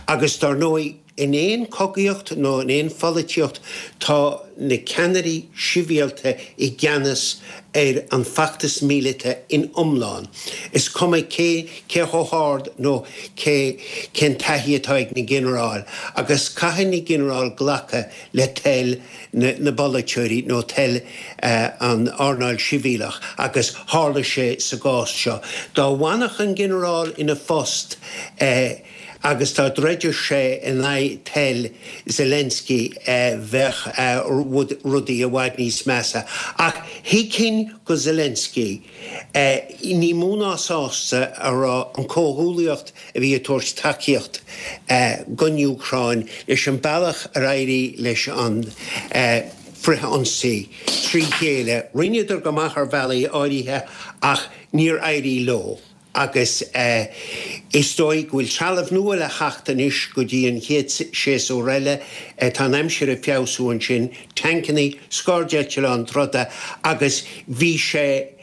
agus dar ndóigh, In aon chogaíocht nó in aon pholaitíocht tá na ceannairí sibhialta i gceannas ar an bhfeachtas míleata in iomlán. Is cuma cé cé chomh hard nó cé cén taithí atá ag na ginearáil agus caithfidh na ginearáil glacadh le toil na na bpolaiteoirí nó toil an earnáil sibhialach agus tharla sé sa gcás seo. Dá bhfanfadh an ginearál ina phost, Agus dá dtroideadh sé in aghaidh toil Zelensky bheadh rudaí i bhfad níos measa. Ach thuigfinn go Zelensky, ní mó ná sásta a raibh an comhghuallaíocht a bhí ag tabhairt tacaíocht don Úcráin leis an bealach ar éirigh leis an frith-ionsaí trí chéile. Rinneadar go maith ar bhealaí áirithe ach níor éirigh leo. Agus is dóigh go bhfuil trealamh nua le theacht anois go dtí an chéad séasúr eile. Tá an aimsir ag feabhsú ansin, tancannaí, scairdeitleáin troda agus bhí sé,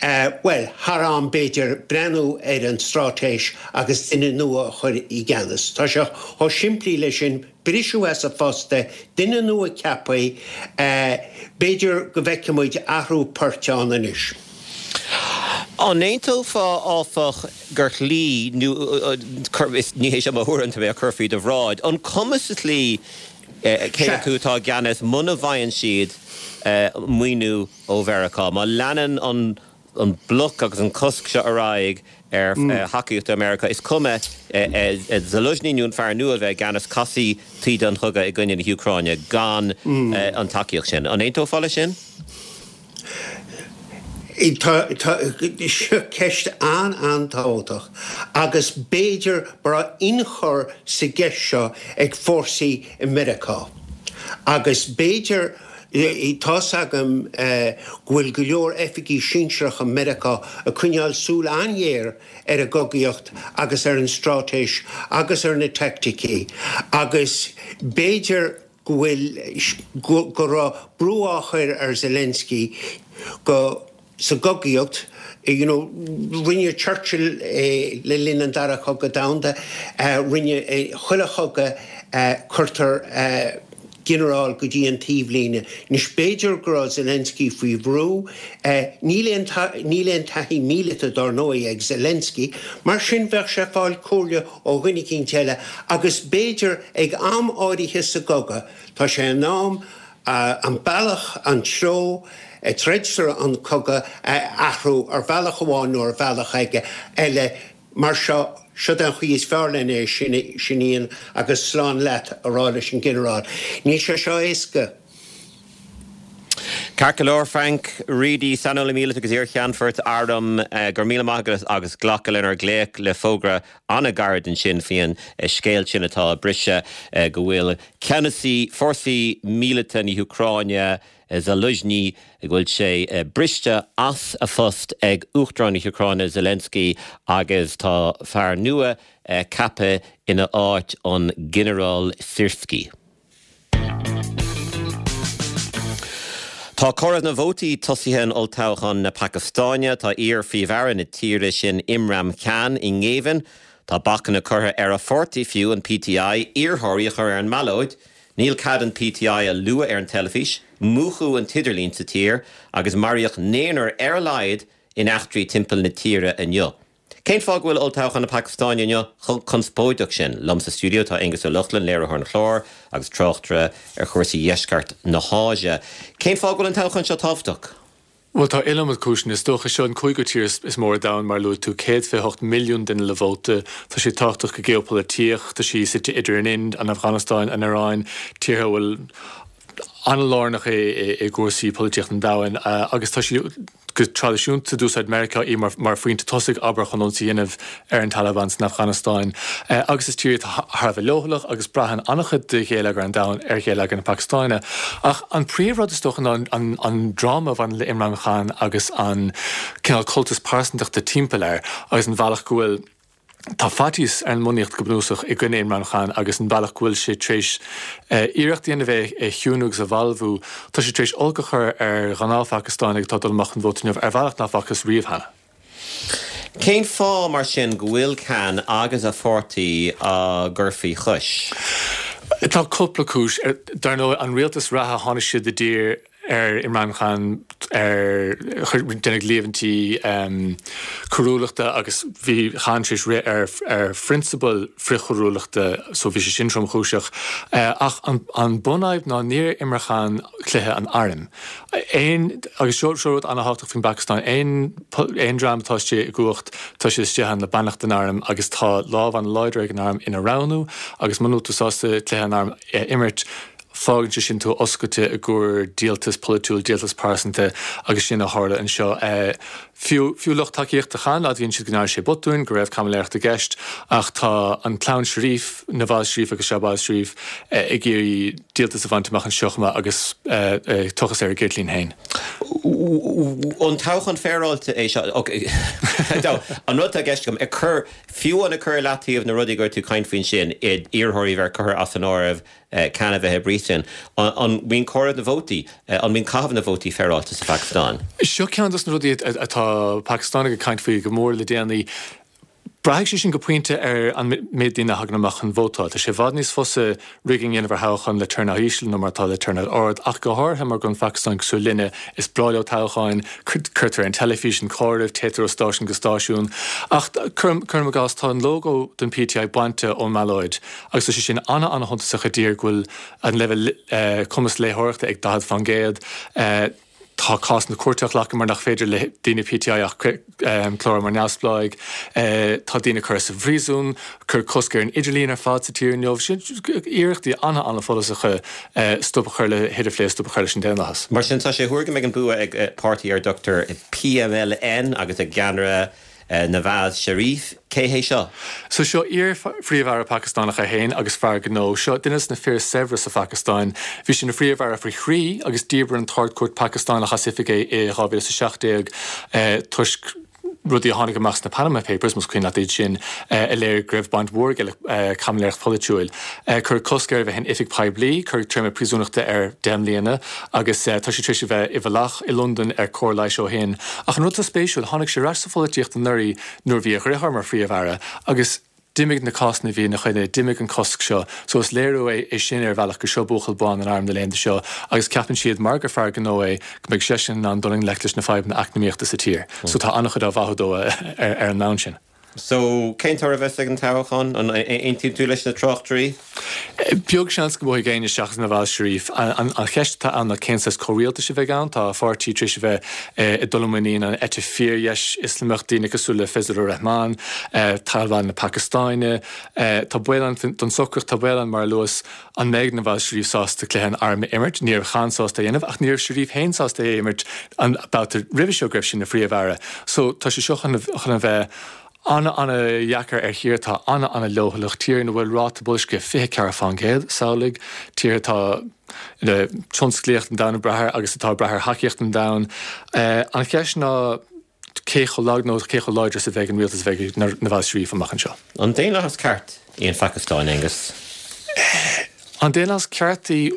bhuel, thar am b'fhéidir breathnú ar an straitéis agus duine nua a chur i gceannas. Tá sé chomh simplí leis sin, briseadh as a phost é, duine nua ceaptha, b'fhéidir go bhfeicfidh muid athrú poirt ann anois. An aontófá, áfach, gur shlí, nó ní hé seo mo thuairim, tá mé á cur faoi do bhráid, an cuma sa tslí cé acu atá i gceannas muna bhfaigheann siad maoiniú ó Mheiriceá? Má leanann an an bloc agus an cosc seo ar aghaidh ar thacaíocht ó Mheiriceá, is cuma Zaluzhny nó an fear nua a bheith i gceannas, casfaidh taoide an chogaidh i gcoinne na hÚcráine gan an tacaíocht sin. An aontófá leis sin? Tá, seo ceist an-an-tábhachtach agus b'fhéidir go raibh ionchur sa gceist seo ag fórsaí i Meiriceá agus b'fhéidir, tá's agam go bhfuil go leor oifigí sinsearacha Meiriceá ag coinneáil súil an-ghéar ar an gcogaíocht agus ar an straitéis agus ar na teaicticí agus b'fhéidir go bhfuil, go raibh brú á chur ar Zelensky go, sa gcogaíocht, you know, rinne Churchill é le linn an Dara Cogadh Domhanda, rinne, chuile chogadh cuirtear ginearál go dtí an taobhlíne. Anois b'fhéidir go raibh Zelensky faoi bhrú, níl aon, níl aon taithí míleata dár ndóigh ag Zelensky, mar sin bheadh sé ag fáil comhairle ó dhuine eicínt eile agus b'fhéidir ag am áirithe sa gcogadh, tá sé in am an bealach, an treo a dtroidtear an cogadh a athrú ar bhealach amháin nó ar bhealach eile. Mar seo, siod é an chaoi is fearr len é sin a dhéanamh agus slán leat a rá leis an ghinearál. Níl sé seo éasca. Ceart go leor, Frank Reidy, saineolaí míleata agus iar-cheannfort airm, go raibh míle maith agat as glacadh lenár nglaoch le fógra an-ghairid ansin faoin scéal sin atá ag briseadh go bhfuil ceannasaí fórsaí míleata na hÚcráine, Zaluzhny, go bhfuil sé briste as a phost ag Uachtarán na hÚcráine Zelensky agus tá fear nua ceaptha ina áit, an Ginearál Syrskyi. Tá comhaireamh na vótaí tosaithe in olltoghchán na Pacastáine. Tá iar-phríomh-aire na tíre sin Imran Khan i ngéibheann. Tá bacanna curtha ar a pháirtí fiú, an PTI, iarrthóirí a chur ar an mballóid. Níl cead an PTI a lua ar an teilifís. Múchadh an t-idirlíon sa tír agus maraíodh naonúr ar a laghad in eachtraí timpeall na tíre inniu. Cén fáth go bhfuil olltoghchán na Pacastáine inniu chomh conspóideach sin? Liom sa stiúideo tá Aengus Ó Lochlainn, léiritheoir an chláir agus tráchtaire ar chúrsaí dheisceart na hÁise. Cén fáth go bhfuil an toghchán seo tábhachtach? Bhuel, tá iliomad cúiseanna. Is dócha, seo an cúigiú tír is mó ar domhan, mar a luaigh tú, 128 milliún duine le vóta. Tá sé tábhachtach go geopholaitíoch. Tá sí suite idir an Ind, an Afganastáin, an Iaráin, tíortha a bhfuil. an-lárnach é i gcúrsaí polaitíochta an domhain agus tá sí go traidisiúnta d'úsáid Meiriceá í mar phointe tosaigh, abair, chun ionsaí a dhéanamh ar an Taliban san Afganastáin. Agus is tír í atá thar a bheith leochaileach agus braitheann an-chuid de gheilleagar an domhain ar gheilleagar na Pacastáine. Ach an príomhrud is dócha ná an dráma a bhaineann le Imran Khan agus an cineál cultas pearsantachta timpeall air agus an bhealach go bhfuil Tá faitíos ar an mbunaíocht go bunúsach i gcoinne Imran Khan agus an bealach go bhfuil sé tar éis iarracht a dhéanamh é a chiúnú agus a bhalbhú. Tá sé tar éis olc a chur ar ghnáth-Phacastánaigh atá ag dul amach chun vóta inniu ar bhealach nach bhfacthas riamh cheana. Cén fáth, mar sin, go bhfuil Khan agus a pháirtí á gcur faoi chois? Tá cúpla cúis. Dar ndóigh, an rialtas reatha, tháinig siad i dtír ar Imran Khan ar deineadh líomhaintí coiriúlachta agus bhí Khan tar éis rith ar ar phrionsabail frithchoiriúlachta so bhí sé sin tromchúiseach. Ach an bunfhadhb ná níor imir Khan cluiche an airm. Aon, agus seo seo rud an-thábhachtach faoin bPacastáin, aon aon dream atá istigh i gcumhacht tá siad istigh ann le beannacht an airm agus tá lámh an-láidir ag an arm ina roghnú agus muna bhfuil tú sásta cluiche an airm a imirt, Fágann sé sin tú oscailte i gcomhair díoltas polaitiúil, díoltas pearsanta agus sin a tharla anseo. Fiú, fiú lucht tacaíochta Khan, admhaíonn siad go ndearna sé botúin, go raibh caimiléireacht i gceist ach tá an clann Sharif, Nawaz Sharif agus Shahbaz Sharif, ag iarraidh díoltas a bhaint amach anseo chomh maith agus tochas ar a gceirtlín féin. An toghchán féaráilte é seo? An rud atá i gceist agam, ag cur, fiú amháin ag cur i leataobh na rudaí go raibh tú ag caint faoi ansin, iarrthóirí a bheith curtha as an áireamh, Khan a bheith i bpríosún. An mbíonn comhaireamh na vótaí, an mbíonn caitheamh na vótaí féaráilte sa Phacastáin? Seo ceann dos na rudaí atá Pacastánaigh ag caint faoi go mór le déanaí. Braithfidh sé sin go pointe ar an méid daoine a thagann amach chun vótáil. Tá sé i bhfad níos fusa rigging a dhéanamh ar thoghchán le turnout íseal ná mar atá le turnout ard, ach go háirithe mar go bhfuil an Phacastáin cosúil linne, is breá leo toghcháin, cuirtear ar an teilifís an comhaireamh, téitear ó stáisiún go stáisiún. Ach cuirim i gcás, tá an lógó don PTI bainte ón mballóid. Agus tá sé sin ana-ana-shuntasach i dtír go bhfuil an leibhéal cumas léitheoireachta ag 40%. Tá cás na cúirte á ghlacadh mar nach féidir le daoine PTI ach clárú mar neamhspleáigh. Tá daoine curtha sa phríosún, cuireadh cosc ar an idirlíon ar fad sa tír inniu. Sin iarrachtaí ana-ana-follasacha stop a chur le hidirphlé, stop a chur leis an daonlathas. Mar sin, tá sé á thuar go mbeidh an bua ag páirtí ar a dtugtar PMLN agus a gceannaire Nawaz Sharif, cé hé seo? So seo iar-phríomh-aire Pacastánach é féin agus fear gnó. Seo duine de na fir is saibhre sa Phacastáin. Bhí sé ina phríomh-aire faoi thrí agus dhíbir an tArd-Chúirt Phacastánach as oifig é i 2017 toisc rudaí a tháinig amach sna Panama Papers, más cuimhin leat iad sin, a léirigh go raibh baint mhór aige le caimiléireacht pholaitiúil. Cuireadh cosc air a bheith in oifig poiblí, cuireadh téarma príosúnachta air 10 mbliana agus tá sé tar éis a bheith i bhfolach i Londain ar cóir leighis ó shin. Ach an rud atá spéisiúil, tháinig sé ar ais sa pholaitíocht anuraidh nuair a bhí a dheartháir mar Phríomh-Aire agus d'imigh na cásanna a bhí ina choinne, d'imigh an cosc seo. So is léiriú é sin ar bhealach gur seo buachaill bán an airm na laethanta seo agus ceapann siad, mar gur fear gnó é, go mbeidh seisean in ann dul i ngleic leis na fadhbanna eacnamaíochta sa tír. So tá an-chuid á mhaitheamh dó ar an mbonn sin. So, cén toradh a bheas ag an toghchán? An aontaíonn tú leis na tráchtairí? Beag seans go mbuafaidh éinne seachas Nawaz Sharif. An cheist atá ann ná cén saghas comhrialtais a bheidh ann. Tá a pháirtí tar éis a bheith ag dul i muinín an eite fíordheis Ioslamach, daoine cosúil le Fazlur Rehman, Taliban na Pacastáine. Tá baol ann don socracht, tá baol ann, mar a luas, an mbeidh Nawaz Sharif sásta cluiche an airm a imirt. Ní raibh Khan sásta é a dhéanamh ach ní raibh Sharif féin sásta é a imirt an babhta roimhe seo go raibh sé ina phríomh-aire. So tá sé seo chun a bheith ana-ana-dheacair ar thír atá ana-ana-leochaileach, tír ina bhfuil ráta boilscithe 24%, samhlaigh, tír atá ina tionsclaíocht an domhain ag brath air agus atá ag brath ar thacaíocht an domhain. An cheist ná cé chomh lag nó cé chomh láidir is a bheidh an rialtas a bheidh ag Nawaz Sharif amach anseo. An daonlathas ceart í an Phacastáin, Aengus? An daonlathas ceart í?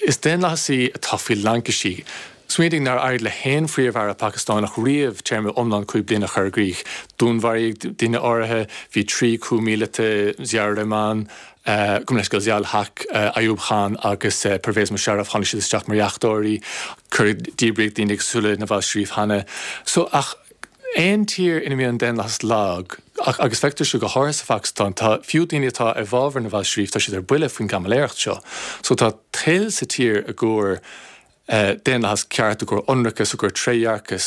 Is daonlathas í atá faoi laincisí. Smaoinigh nár éirigh le haon phríomh-aire Pacastánach riamh téarma iomlán 5 bliana a chur i gcrích. Dúnmharaíodh daoine áirithe, bhí 3 coup míleata, Ziaur Rahman, gabh mo leithscéal, Ziaul Haq, Ayub Khan agus Pervez Musharraf, tháinig siad isteach mar dheachtóirí, cuireadh, díbríodh daoine cosúil le Nawaz Sharif cheana. So, ach aon tír ina mbíonn an daonlathas lag, agus feictear seo go háirithe sa Phacastáin, tá, fiú daoine atá i bhfabhar Nawaz Sharif, tá siad ar buile faoin gcaimiléireacht seo. So tá toil sa tír i gcomhair daonlathas ceart, i gcomhair ionracas, i gcomhair trédhearcas.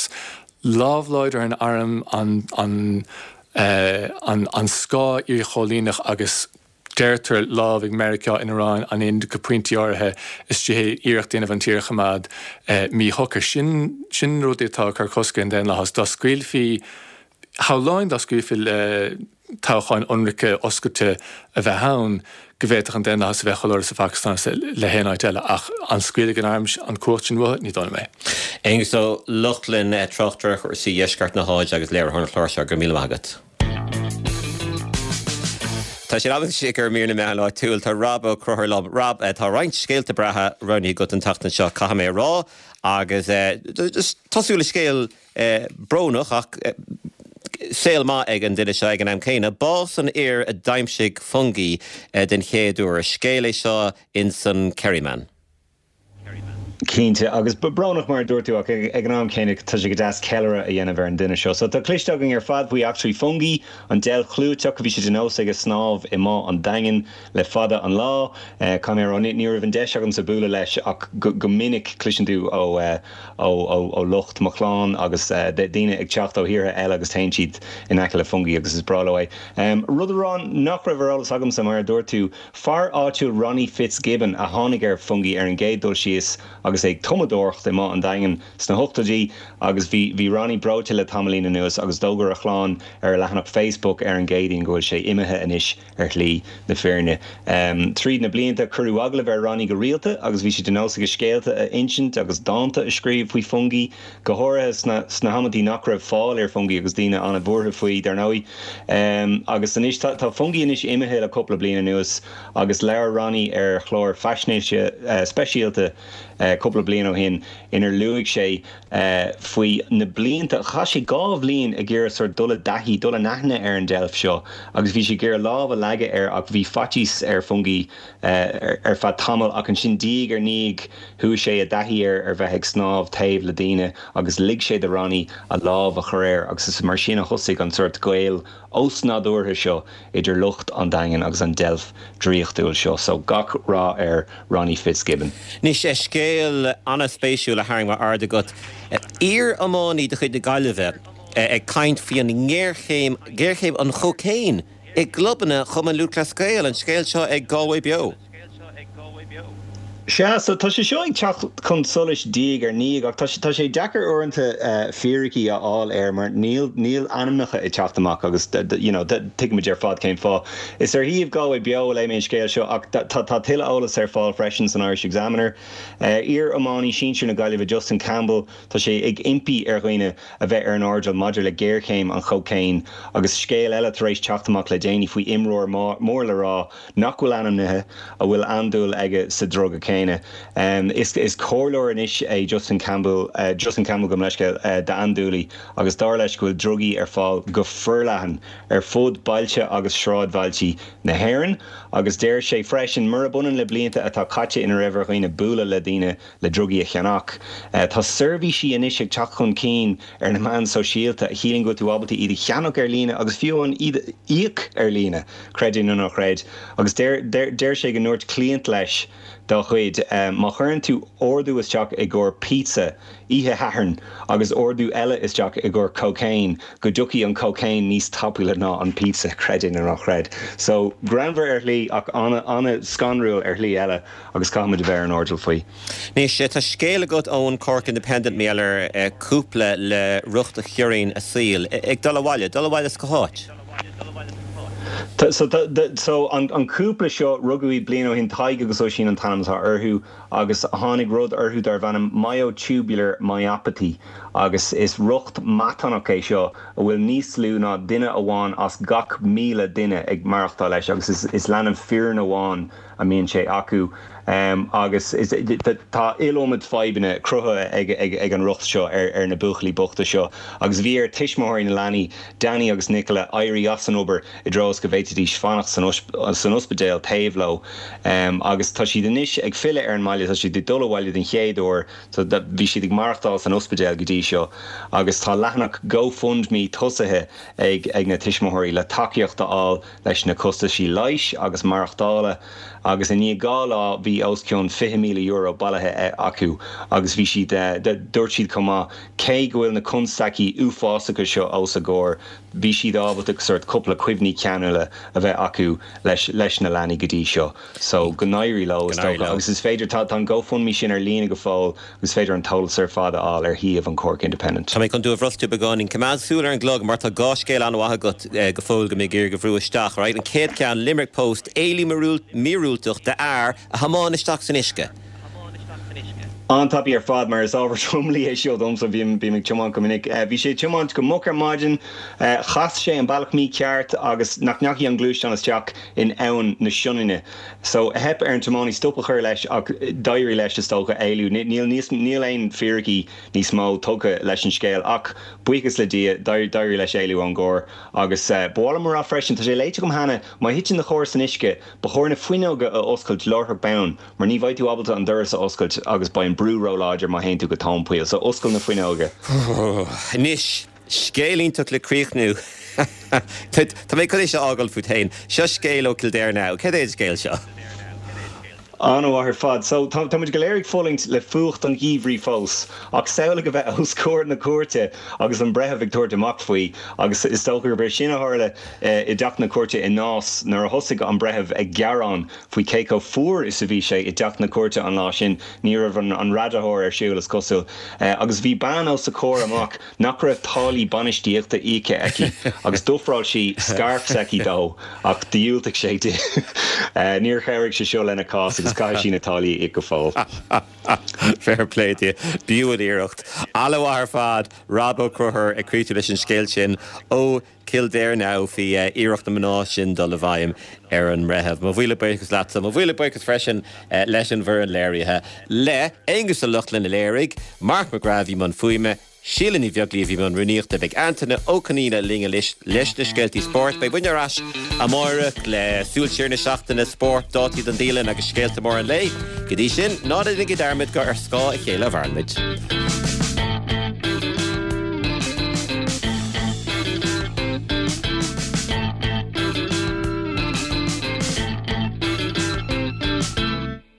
Lámh láidir an airm, an, an, an, an scáth iarchoilíneach agus. deirtear, lámh ag Meiriceá in Iaráin, an Ind go pointí áirithe, istigh iarracht a dhéanamh an tír a choimeád míshocair. Sin, sin na rudaí atá ag cur cosc ar an daonlathas. Dá scaoilfí, shamhlóinn dá scaoilfí le toghcháin ionraice oscailte a bheith ann, go bhféadfadh an daonlathas a bheith chomh láidir sa Phacastáin is le haon áit eile. Ach an scaoilfidh an arm an cumhacht sin uathu? Ní dóigh liom é. Aengus Ó Lochlainn, tráchtaire ar chúrsaí dheisceart na hÁise agus léiritheoir an chláir seo, go raibh míle maith agat. Tá sé in am anois ag mír na meán áitiúil. Tá Rob Ó Conchúir liom. Rob, tá roinnt scéalta breátha roghnaithe agat an tseachtain seo, caithfidh mé a rá, agus tosú le scéal brónach ach saol maith ag an duine seo ag an am céanna. Bás an fhir a d'aimsigh Fungie den chéad uair. Scéal é seo ins an Kerryman. Cinnte, agus brónach mar a dúirt tú ach ag an am céanna tá sé go deas ceiliúradh a dhéanamh ar an duine seo. So tá cloiste againn ar fad faoi eachtraí Fungie, an deilf chlúiteach, bhí sé de nós aige snámh i mBá an Daingin le fada an lá. Caithfidh mé a rá, ní raibh an deis agamsa bualadh leis ach go minic cloiseann tú ó ó lucht mo chlann agus daoine ag teacht ó thíortha eile agus téann siad in aice le Fungie agus is breá leo é. Rud a rá nach raibh ar eolas agamsa, mar a dúirt tú, fear áitiúil Ronnie Fitzgibbon a tháinig ar Fungie ar an gcéad dul síos agus é ag tumadóireacht i mBá an Daingin sna hochtóidí agus bhí bhí Ronnie breoite le tamaillín anuas agus d'fhógair a chlann ar a leathanach Facebook ar an gCéadaoin go bhfuil sé imithe anois ar shlí na fírinne. Tríd na blianta, cuireadh agallamh ar Ronnie go rialta agus bhí sé de nós aige scéalta a insint agus dánta a scríobh faoi Fungie, go háirithe sna sna hamantaí nach raibh fáil ar Fungie agus daoine an-bhuartha faoi, dar ndóigh. Agus anois, tá tá Fungie anois imithe le cúpla bliain anuas agus labhair Ronnie ar chlár faisnéise speisialta cúpla bliain ó shin inar luaigh sé faoi na blianta. Chaith sé 2 bhliain ag iarraidh sort dul i dtaithí, dul in aithne ar an deilf seo agus bhí sé ag iarraidh lámh a leagadh air ach bhí faitíos ar Fungie ar feadh tamaill ach ansin diaidh ar ndiaidh chuaigh sé i dtaithí air ar bheith ag snámh taobh le daoine agus lig sé do Ronnie a lámh a chur air agus is mar sin a thosaigh an sort gaol osnádúrtha seo idir lucht an Daingin agus an deilf draíochtúil seo. So gach rath ar Ronnie Fitzgibbon. Anois, scéal an-spéisiúil a tharraing m'aird agat. Iar-iománaí de chuid na Gaillimhe ag caint faoi an ngéarchéim, géarchéim an chócaon i gclubanna Chumann Lúthchleas Gael. An scéal seo ag Galway Beo. Sea, so tá sé seo ag teacht chun solais diaidh ar ndiaidh ach tá tá sé deacair uaireanta fíricí a fháil air mar níl níl ainmneacha ag teacht amach agus you know tuigimid ar fad cén fáth. Is ar shuíomh Galway Beo a léigh mé an scéal seo ach tá tá tuilleadh eolas ar fáil freisin san Irish Examiner. Iar-iománaí sinsir na Gaillimhe Justin Campbell, tá sé ag impí ar dhaoine a bheith ar an airdeall maidir le géarchéim an chócaoin agus scéal eile tar éis teacht amach le déanaí faoi imreoir mór le rá nach bhfuil ainmnithe, a bhfuil andúil aige sa druga céanna. Is is comhairleoir anois é Justin Campbell, Justin Campbell gabh mo leithscéal, d'andúiligh agus dar leis go bhfuil drugaí ar fáil go forleathan ar fud bailte agus sráidbhailtí na hÉireann agus deir sé freisin, murab ionann le blianta atá caite ina raibh ar dhaoine bualadh le daoine le drugaí a cheannach. Tá seirbhísí anois ag teacht chun cinn ar na meáin sóisialta a chiallaíonn go bhfuil tú ábalta iad a cheannach ar líne agus fiú amháin iad a íoc ar líne, creid é nó ná creid. Agus deir deir sé go ndúirt cliant leis dá chuid, má chuireann tú ordú isteach i gcomhair pizza oíche Shathairn agus ordú eile isteach i gcomhair cocaine, go dtiocfaidh an cocaine níos tapúla ná an pizza, creid é nó ná creid. So, greannmhar ar shlí ach an-scanrúil ar shlí eile. agus caithfimid a bheith ar an airdeall faoi. Anois, tá scéal agat ón Cork Independent, mar gheall ar cúpla le riocht a chiorraíonn a saol, ag dul abhaile, dul abhaile as cá háit? So, so an cúpla seo, rugadh iad bliain ó shin, Tadhg agus Oisín an t-ainm atá orthu, agus tháinig rud orthu darbh ainm myotubular myopathy, agus is riocht matánach é seo a bhfuil níos lú ná duine amháin as gach 1,000 duine ag maireachtáil leis, agus is leanbh fireann amháin a mbíonn sé acu agus tá iliomad fadhbanna cruthaithe ag an riocht seo ar na buachaillí bochta seo agus bhí ar tuismitheoirí na leanaí, Danny agus Nicola, éirí as an obair i dtreo is go bhféadfaidís fanacht san ospidéal taobh leo agus tá siad anois ag filleadh ar an mbaile, tá siad ag dul abhaile den chéad uair, bhí siad ag maireachtáil san ospidéal go dtí seo agus tá leathanach GoFundMe tosaithe ag na tuismitheoirí le tacaíocht a fháil leis na costaisí leighis agus maireachtála agus i ndiaidh 2 lá bhí. bhí os cionn €20,000 bailithe acu agus bhí siad, dúirt siad chomh maith, cé go bhfuil na constaicí uafásacha seo os a gcomhair, bhí siad ábalta sórt cúpla cuimhní ceanúla a bheith acu leis leis na leanaí go dtí seo. So, go n-éirí leo, is dócha. Agus is féidir, tá an GoFundMe sin ar líne go fóill agus is féidir an t-eolas ar fad a fháil ar shuíomh an Cork Independent. Tá mé chun tú a bhrostú beagáinín. Coimeád súil ar an gclog mar tá dhá scéal an-mhaith agat go fóill go mé ag iarraidh a bhrú isteach, right? An chéad cheann, Limerick Post, éalú míorúilteach d'fhear a thiomáin isteach san uisce. An-tapaidh ar fad mar is ábhar tromluí é seo domsa, bím ag tiomáint go minic. Bhí sé ag tiomáint go moch ar maidin, chas sé an bealach mícheart agus nach ndeachaigh an gluaisteán isteach in Abhainn na Sionainne. So, theip ar an tiománaí stop a chur leis ach d'éirigh leis, is dócha, éalú. Níl níos, níl aon fíricí níos mó tugtha leis an scéal ach, buíochas le Dia, d'éirigh leis éalú ón gcarr. Agus ba mhaith liom a rá freisin, tá sé léite agam cheana, má thiteann do charr san uisce, ba chóir na fuinneoga a oscailt láithreach bonn mar ní bheidh tú ábalta an doras a oscailt agus beidh an brú róláidir má théann tú go tóin poill. So, oscail na fuinneoga. Anois, Scéal iontach le críochnú. Tá mé chun é seo a fhágáil fút féin. Seo scéal ó Kildare Now. Céard é an scéal seo? An-mhaith ar fad. So, tá muid go léir ag fulaingt le fuacht an gheimhridh fós, ach samhlaigh a bheith os comhair na cúirte agus an breitheamh ag tabhairt amach faoi. Agus is dócha gurb é sin a tharla i dteach na cúirte i Nás nuair a thosaigh an breitheamh ag gearán faoi cé chomh fuar is a bhí sé i dteach na cúirte an lá sin. Ní raibh an radaitheoir ar siúl, is cosúil. Agus bhí bean os a comhair amach nach raibh táillí bainistíochta íoctha aici agus d'ofráil sí scairf s'aici dó ach dhiúltaigh sé di. Níor chabhraigh sé seo lena cás agus caithfidh sí na táillí a íoc go fóill. Fair play di. B'fhiú an iarracht. An-mhaith ar fad, Rob Ó Conchúir ag críochnú leis an scéal sin ó Kildare Now faoi iarracht na mná sin dul i bhfeidhm ar an mbreitheamh. Mo mhíle buíochas leatsa. Mo mhíle buíochas freisin leis an bhfoireann léirithe, le Aonghus Ó Lochlainn a léirigh, Mark McGrath a bhí i mbun fuaime, Síle Ní Bheaglaoí a bhí i mbun rúnaíochta. Beidh Antaine Ó Conaola linn anois leis na scéaltaí spóirt. Beidh muidne ar ais amáireach le súil siar na seachtaine, spórt, dátaí don dialann agus scéalta móra an lae. Go dtí sin, ná déanaigí dearmad gur ar scáth a chéile a mhaireann muid.